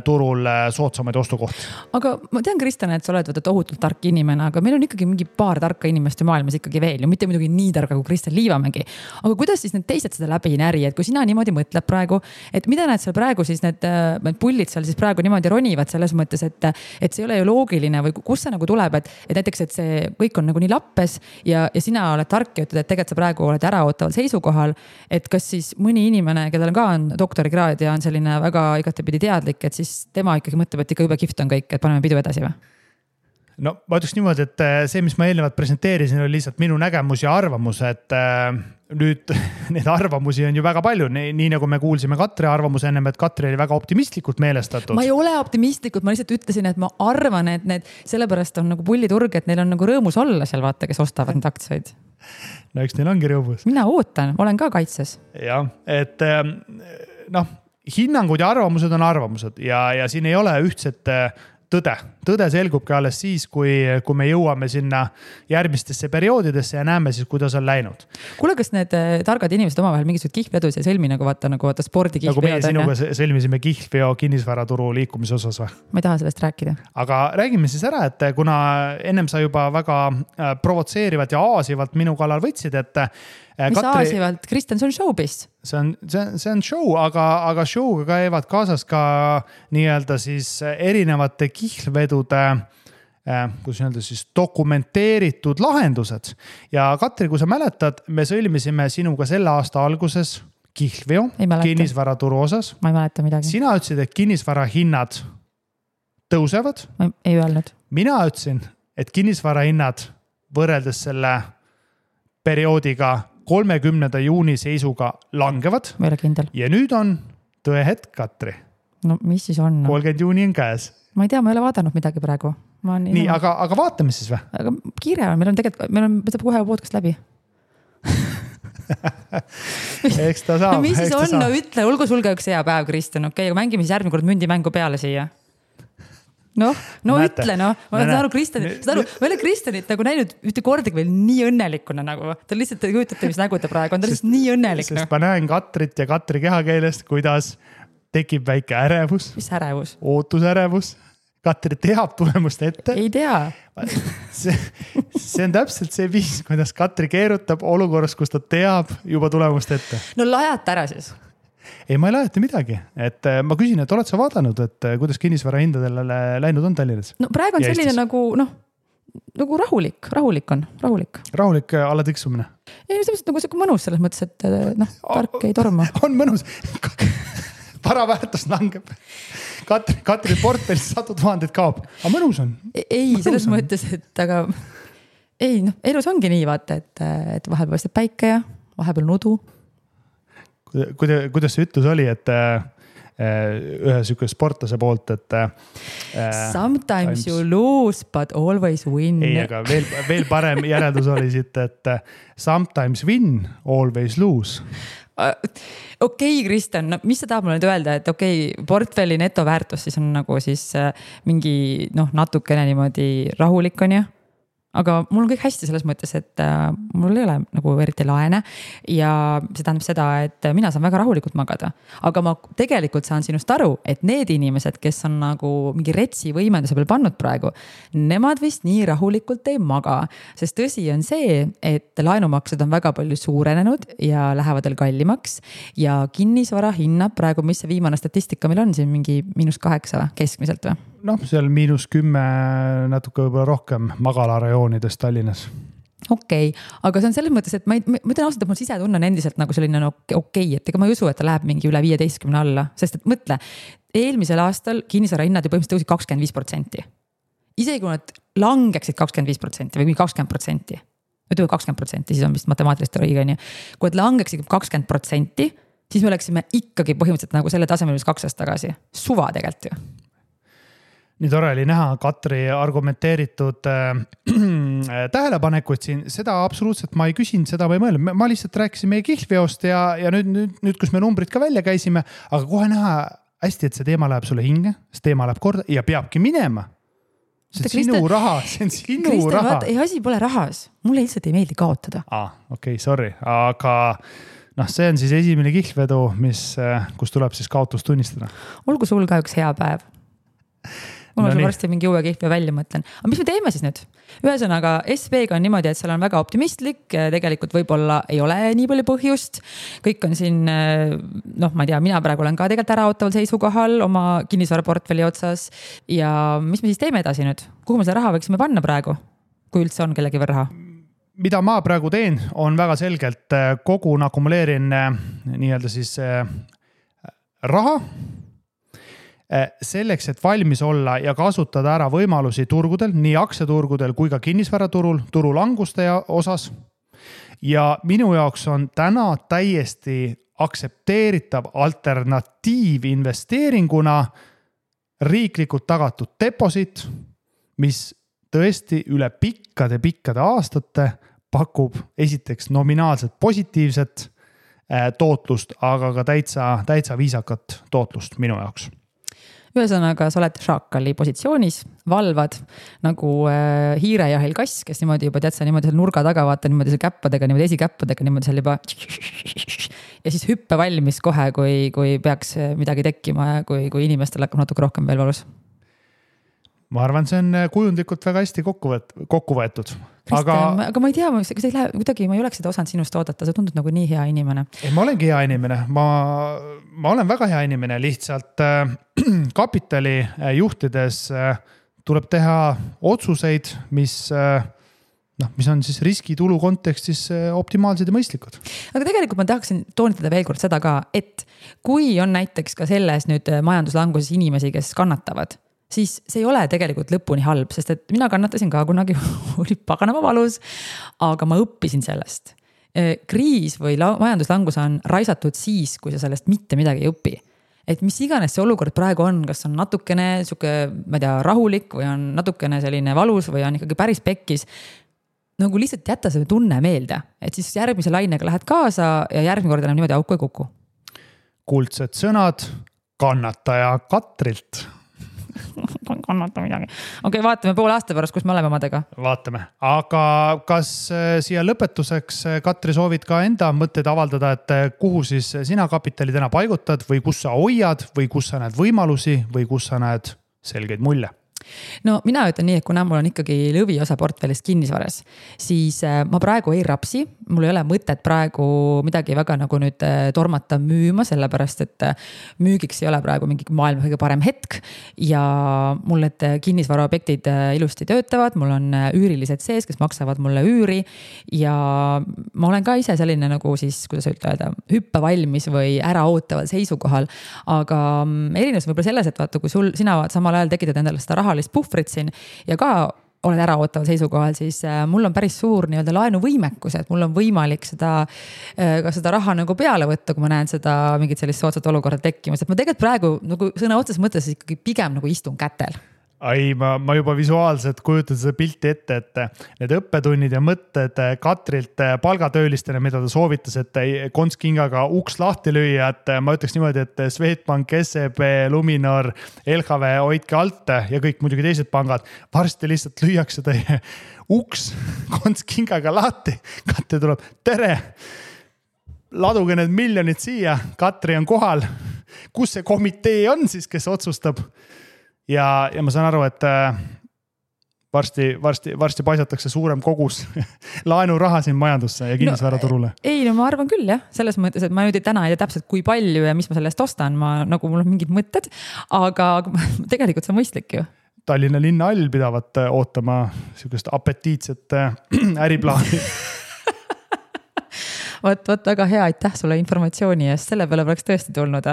B: turul soodsamaid ostukohti.
A: Aga ma tean, Kristjan, et sa oled tohutult tark inimene, aga meil on ikkagi mingi paar tarka inimeste maailmas ikkagi veel ja mitte muidugi nii targa kui Kristjan Liivamägi. Aga kuidas siis need teised seda läbi ei näri, et kui sina niimoodi mõtled praegu, et mida need seal praegu siis need pullid seal siis praegu niimoodi ronivad selles mõttes, et see ei ole ju loogiline või kus see nagu tuleb, et näiteks, et see kõik on nagu nii lappes ja sina oled tark ja ütled, et tegelikult sa praegu oled äraootaval seisukohal, et kas siis mõni inimene, kellel ka on doktorikraad ja on selline väga igatepidi teadlik, et siis tema ikkagi mõtleb, et ikka jube kihvt on kõik, et paneme pidu edasi või?
B: No ma ütleks niimoodi, et see, mis ma eelnevalt presenteerisin, oli lihtsalt minu nägemus ja arvamus, et nüüd neid arvamusi on ju väga palju, nii nagu me kuulsime Katri arvamuse ennem, et Katri oli väga optimistlikult meelestatud.
A: Ma ei ole optimistlikult, ma lihtsalt ütlesin, et ma arvan, et need sellepärast on nagu pulliturg, et neil on nagu rõõmus olla seal, vaata, kes ostavad need aktsiaid.
B: No eks neil ongi rõõmus.
A: Mina ootan, olen ka kaitses.
B: Jah, et hinnangud ja arvamused on arvamused ja siin ei ole ühtset tõde. Tõde selgubki alles siis, kui me jõuame sinna järgmistesse perioodidesse ja näeme siis, kuidas on läinud.
A: Kuule, kas need targad inimesed omavahel mingisugused kihlvedus ja sõlmi nagu vaata spordikihlveod?
B: Nagu meie sinuga sõlmisime kihlveo kinnisvaraturu liikumise osas või?
A: Ma ei taha sellest rääkida. Aga
B: räägime siis ära, et kuna ennem sa juba väga provotseerivad ja aasivalt minu kallal võtsid, et
A: mis aasivalt? Kristjan, see on showbiz.
B: See on show, aga showga käivad kaasas ka nii-öelda siis erinevate kihlvedude, kuidas öelda siis dokumenteeritud lahendused. Ja Katri, kui sa mäletad, me sõlmisime sinuga selle aasta alguses kihlveo kinnisvaraturu osas.
A: Ma ei mäleta midagi.
B: Sina ütlesid, et kinnisvara hinnad tõusevad.
A: Ma ei öelnud.
B: Mina ütlesin, et kinnisvara hinnad võrreldes selle perioodiga 30. juuni seisuga langevad.
A: Ma ei ole kindel.
B: Ja nüüd on tõe hetk, Katri.
A: No mis siis on?
B: 30. juuni on käes.
A: Ma ei tea, ma ei ole vaadanud midagi praegu.
B: Nii, aga vaatame siis või?
A: Aga kiire on, meil on saab kohe podcast läbi.
B: Eks ta saab.
A: No mis siis on? No ütle, olgu sul ka üks hea päev, Kristjan. Okei, aga mängime siis järgmine kord mündimängu peale siia. No näete, ütle, no. Ma olen aru, ma ei ole Kristjanit nagu näinud ühte kordagi veel nii õnnelikuna nagu. Ta lihtsalt kujutate, mis nägu ta praegu on. Ta lihtsalt nii õnnelik.
B: Sest ma näen Katrit ja Katri kehakeelest, kuidas tekib väike ärevus.
A: Mis ärevus?
B: Ootusärevus. Katri teab tulemust ette.
A: Ei tea.
B: See on täpselt see viis, kuidas Katri keerutab olukorras, kus ta teab juba tulemust ette.
A: No lajata ära siis.
B: Ei, ma ei lajata midagi. Et ma küsin, et oled sa vaadanud, et kuidas kinnisvara hindadele läinud on Tallinnas?
A: No praegu on ja selline Eestis? nagu rahulik on.
B: Rahulik alla tiksumine?
A: Ei, nagu see mõnus selles mõttes, et tark ei torma.
B: On mõnus. Varaväärtus langeb. Katri portfellis 100 000 kaob. Aga mõnus on?
A: Ei, selles mõttes, et aga ei, elus ongi nii vaata, et vahepeal paistab päike ja vahepeal nudu.
B: Kuidas see ütlus oli, et ühe sükke sportlase poolt, et
A: sometimes you lose, but always win.
B: Ei, aga veel parem järeldus oli siit, et sometimes win, always lose.
A: Okei, Kristjan, mis sa tahab mulle nüüd öelda, et portfelli netoväärtus siis on nagu siis mingi natukene niimoodi rahulik on ju? aga mul on kõik hästi selles mõttes, et mul ei ole nagu eriti laene ja see tähendab seda, et mina saan väga rahulikult magada. Aga ma tegelikult saan sinust aru, et need inimesed, kes on nagu mingi retsi võimenduse peal pannud praegu, nemad vist nii rahulikult ei maga, sest tõsi on see, et laenumaksed on väga palju suurenenud ja lähevad veel kallimaks ja kinnisvara hinnab praegu, mis see viimane statistika meil on siin mingi -8 keskmiselt või?
B: Noh, seal -10 natuke võib-olla rohkem magalarajoonides Tallinnas.
A: Okei, aga see on selles mõttes, et ma ütlen ausalt, et mul sisetunne on endiselt nagu selline okei, et ega ma ei usu, et ta läheb mingi üle 15 alla, sest et mõtle, eelmisel aastal kinnisvara hinnad ju põhimõtteliselt tõusid 25%. Isegi kui nad langeksid 25% või 20%, ütleme 20%, siis on vist matemaatilist õige, on ju. Kui nad langeksid 20%, siis me oleksime ikkagi põhimõtteliselt nagu selle tasemel, mis 2 aastat tagasi. Suva tegelikult ju.
B: Nii tore oli näha Katri argumenteeritud tähelepanekuid siin, seda absoluutselt ma ei küsinud, seda ma ei mõelnud. Ma lihtsalt rääkisin meie kihlveost ja nüüd, kus me numbrid ka välja käisime, aga kohe näha hästi, et see teema läheb sulle hinge, see teema läheb korda ja peabki minema. See on sinu raha, see on sinu raha.
A: Ei, asi pole rahas, mulle lihtsalt ei meeldi kaotada.
B: Okei, sorry, aga see on siis esimene kihlvedu, kus tuleb siis kaotus tunnistada.
A: Olgu sul ka üks hea päev. Mul on varsti mingi uue kihve välja mõtlen. Aga mis me teeme siis nüüd? Ühesõnaga, SB-ga on niimoodi, et seal on väga optimistlik, tegelikult võib-olla ei ole nii palju põhjust. Kõik on siin, ma ei tea, mina praegu olen ka tegelikult äraootaval seisukohal oma kinnisvaraportfelli otsas. Ja mis me siis teeme edasi nüüd? Kuhu me seda raha võiksime panna praegu, kui üldse on kellegi veel raha?
B: Mida ma praegu teen, on väga selgelt kogun, akumuleerin nii-öelda siis raha, selleks, et valmis olla ja kasutada ära võimalusi turgudel, nii aktsiaturgudel kui ka kinnisvaraturul, turulanguste osas. Ja minu jaoks on täna täiesti aktsepteeritav alternatiiv investeeringuna riiklikult tagatud deposit, mis tõesti üle pikkade aastate pakub esiteks nominaalselt positiivset tootlust, aga ka täitsa viisakat tootlust minu jaoks.
A: Ühesõnaga, sa oled šaakali positsioonis, valvad nagu hiirejahil kass, kes niimoodi juba tead sa niimoodi seal nurga taga vaata niimoodi seal käppadega, niimoodi esikäppadega niimoodi seal juba ja siis hüppe valmis kohe, kui peaks midagi tekkima ja kui inimestel hakkab natuke rohkem veel valus.
B: Ma arvan, see on kujundlikult väga hästi kokku võetud.
A: Kristjan, aga ma ei tea, kas ei lähe, kuidagi ma ei oleks seda osanud sinust oodata, sa tundud nagu nii hea inimene.
B: Ei, ma olengi hea inimene, ma olen väga hea inimene, lihtsalt kapitali juhtides tuleb teha otsuseid, mis on siis riskitulu kontekstis optimaalsed ja mõistlikud.
A: Aga tegelikult ma tahaksin toonitada veel kord seda ka, et kui on näiteks ka selles nüüd majanduslanguses inimesi, kes kannatavad, siis see ei ole tegelikult lõpuni halb, sest et mina kannatasin ka kunagi, oli paganama valus, aga ma õppisin sellest. Kriis või majanduslangus on raisatud siis, kui sa sellest mitte midagi ei õpi. Et mis iganes see olukord praegu on, kas on natukene ma ei tea, rahulik või on natukene selline valus või on ikkagi päris pekkis, nagu lihtsalt jätta see tunne meelde, et siis järgmise lainega lähed kaasa ja järgmine kord enam niimoodi auku ei kuku.
B: Kuldsed sõnad kannataja Katrilt.
A: Kannata midagi. Okei, vaatame pool aasta pärast, kus me oleme omadega.
B: Vaatame. Aga kas siia lõpetuseks, Katri, soovid ka enda mõtteid avaldada, et kuhu siis sina kapitali täna paigutad või kus sa hoiad või kus sa näed võimalusi või kus sa näed selgeid mulje?
A: No mina ütlen nii, et kuna mul on ikkagi lõviosa portfellist kinnisvaras, siis ma praegu ei rapsi, mul ei ole mõtet praegu midagi väga nagu nüüd tormata müüma, sellepärast et müügiks ei ole praegu mingi maailma kõige parem hetk ja mul need kinnisvaraobjektid ilusti töötavad, mul on üürilised sees, kes maksavad mulle üüri ja ma olen ka ise selline nagu siis, kuidas öelda, hüppe valmis või äraootaval seisukohal, aga erinevus võib-olla selles, et vaata, kui sina samal ajal tekitad endale seda rahalist puhvrit siin ja ka oled äraootaval seisukohal, siis mul on päris suur nii-öelda laenuvõimekus, et mul on võimalik ka seda raha nagu peale võtta, kui ma näen seda mingit sellist soodsat olukorda tekkimas, et ma tegelikult praegu nagu sõna otsas mõttes ikkagi pigem nagu istun kätel.
B: Ai, ma juba visuaalselt kujutan seda pilti ette, et need õppetunnid ja mõtted Katrilt palgatöölistele, mida ta soovitas, et kontskingaga uks lahti lüüa, et ma ütleks niimoodi, et Swedbank, SEB, Luminor, LHV, hoidke alt ja kõik muidugi teised pangad. Varsti lihtsalt lüüakse teie uks kontskingaga lahti. Katri tuleb, tere, laduge need miljonid siia, Katri on kohal. Kus see komitee on siis, kes otsustab? Ja ma saan aru, et varsti paisatakse suurem kogus laenuraha siin majandusse ja kinnisvaraturule.
A: No ma arvan küll jah, selles mõttes, et ma nüüd täna ei tea täpselt kui palju ja mis ma sellest ostan, mul on mingid mõtted, aga tegelikult see on mõistlik ju.
B: Tallinna linnahall pidavat ootama sellist apetiitset äriplaani.
A: Vot väga hea, aitäh sulle informatsiooni eest, selle peale oleks tõesti tulnud.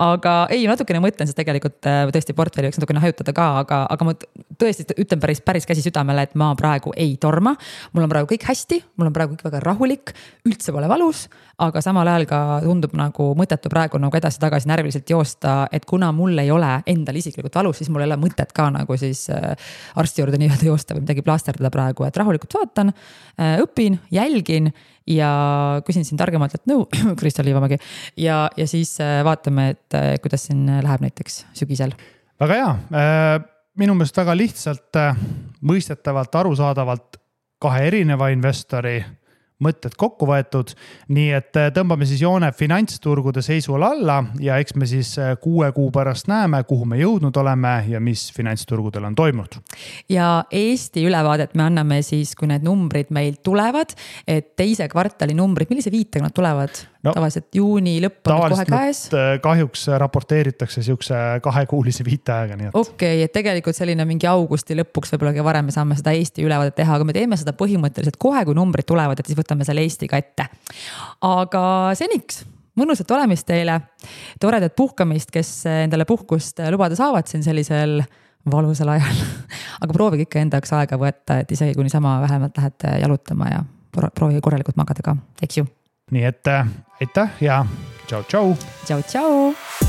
A: Aga natukene mõtlen, sest tegelikult tõesti portfelli võiks natukene hajutada ka, aga ma tõesti ütlen päris käsi südamele, et ma praegu ei torma. Mul on praegu kõik hästi, mul on praegu kõik väga rahulik, üldse pole valus, aga samal ajal ka tundub nagu mõttetu praegu nagu edasi-tagasi närviliselt joosta, et kuna mul ei ole endal isiklikult valus, siis mul ei ole mõtet ka nagu siis arsti juurde nii-öelda joosta või midagi plaasterdada praegu, et rahulikult vaatan, õpin, jälgin ja küsin siin targemalt, et Kristel Liivamägi ja siis vaatame, et kuidas siin läheb näiteks sügisel.
B: Väga hea. Minu meelest väga lihtsalt, mõistetavalt, arusaadavalt kahe erineva investori mõtted kokku võetud, nii et tõmbame siis joone finantsturgude seisual alla ja eks me siis 6 kuu pärast näeme, kuhu me jõudnud oleme ja mis finantsturgudel on toimunud.
A: Ja Eesti ülevaadet me anname siis, kui need numbrid meil tulevad, et teise kvartali numbrid, millise viitega nad tulevad? Tavaliselt juuni lõpp on kohe käes.
B: Kahjuks raporteeritakse siukse 2-kuulise viiteaega.
A: Okei, et tegelikult selline mingi augusti lõpuks võib-olla varem me saame seda Eesti ülevaadet teha, aga me teeme seda põhimõtteliselt kohe, kui numbrid tulevad, et siis võtame selle Eestiga ette. Aga seniks, mõnusat olemist teile, toredat puhkamist, kes endale puhkust lubada saavad siin sellisel valusal ajal. Aga proovige ikka endaks aega võtta, et isegi kui niisama vähemalt lähete jalutama ja proovige korralikult magada ka, eks ju.
B: Nii et aitäh ja tšau.
A: Tšau.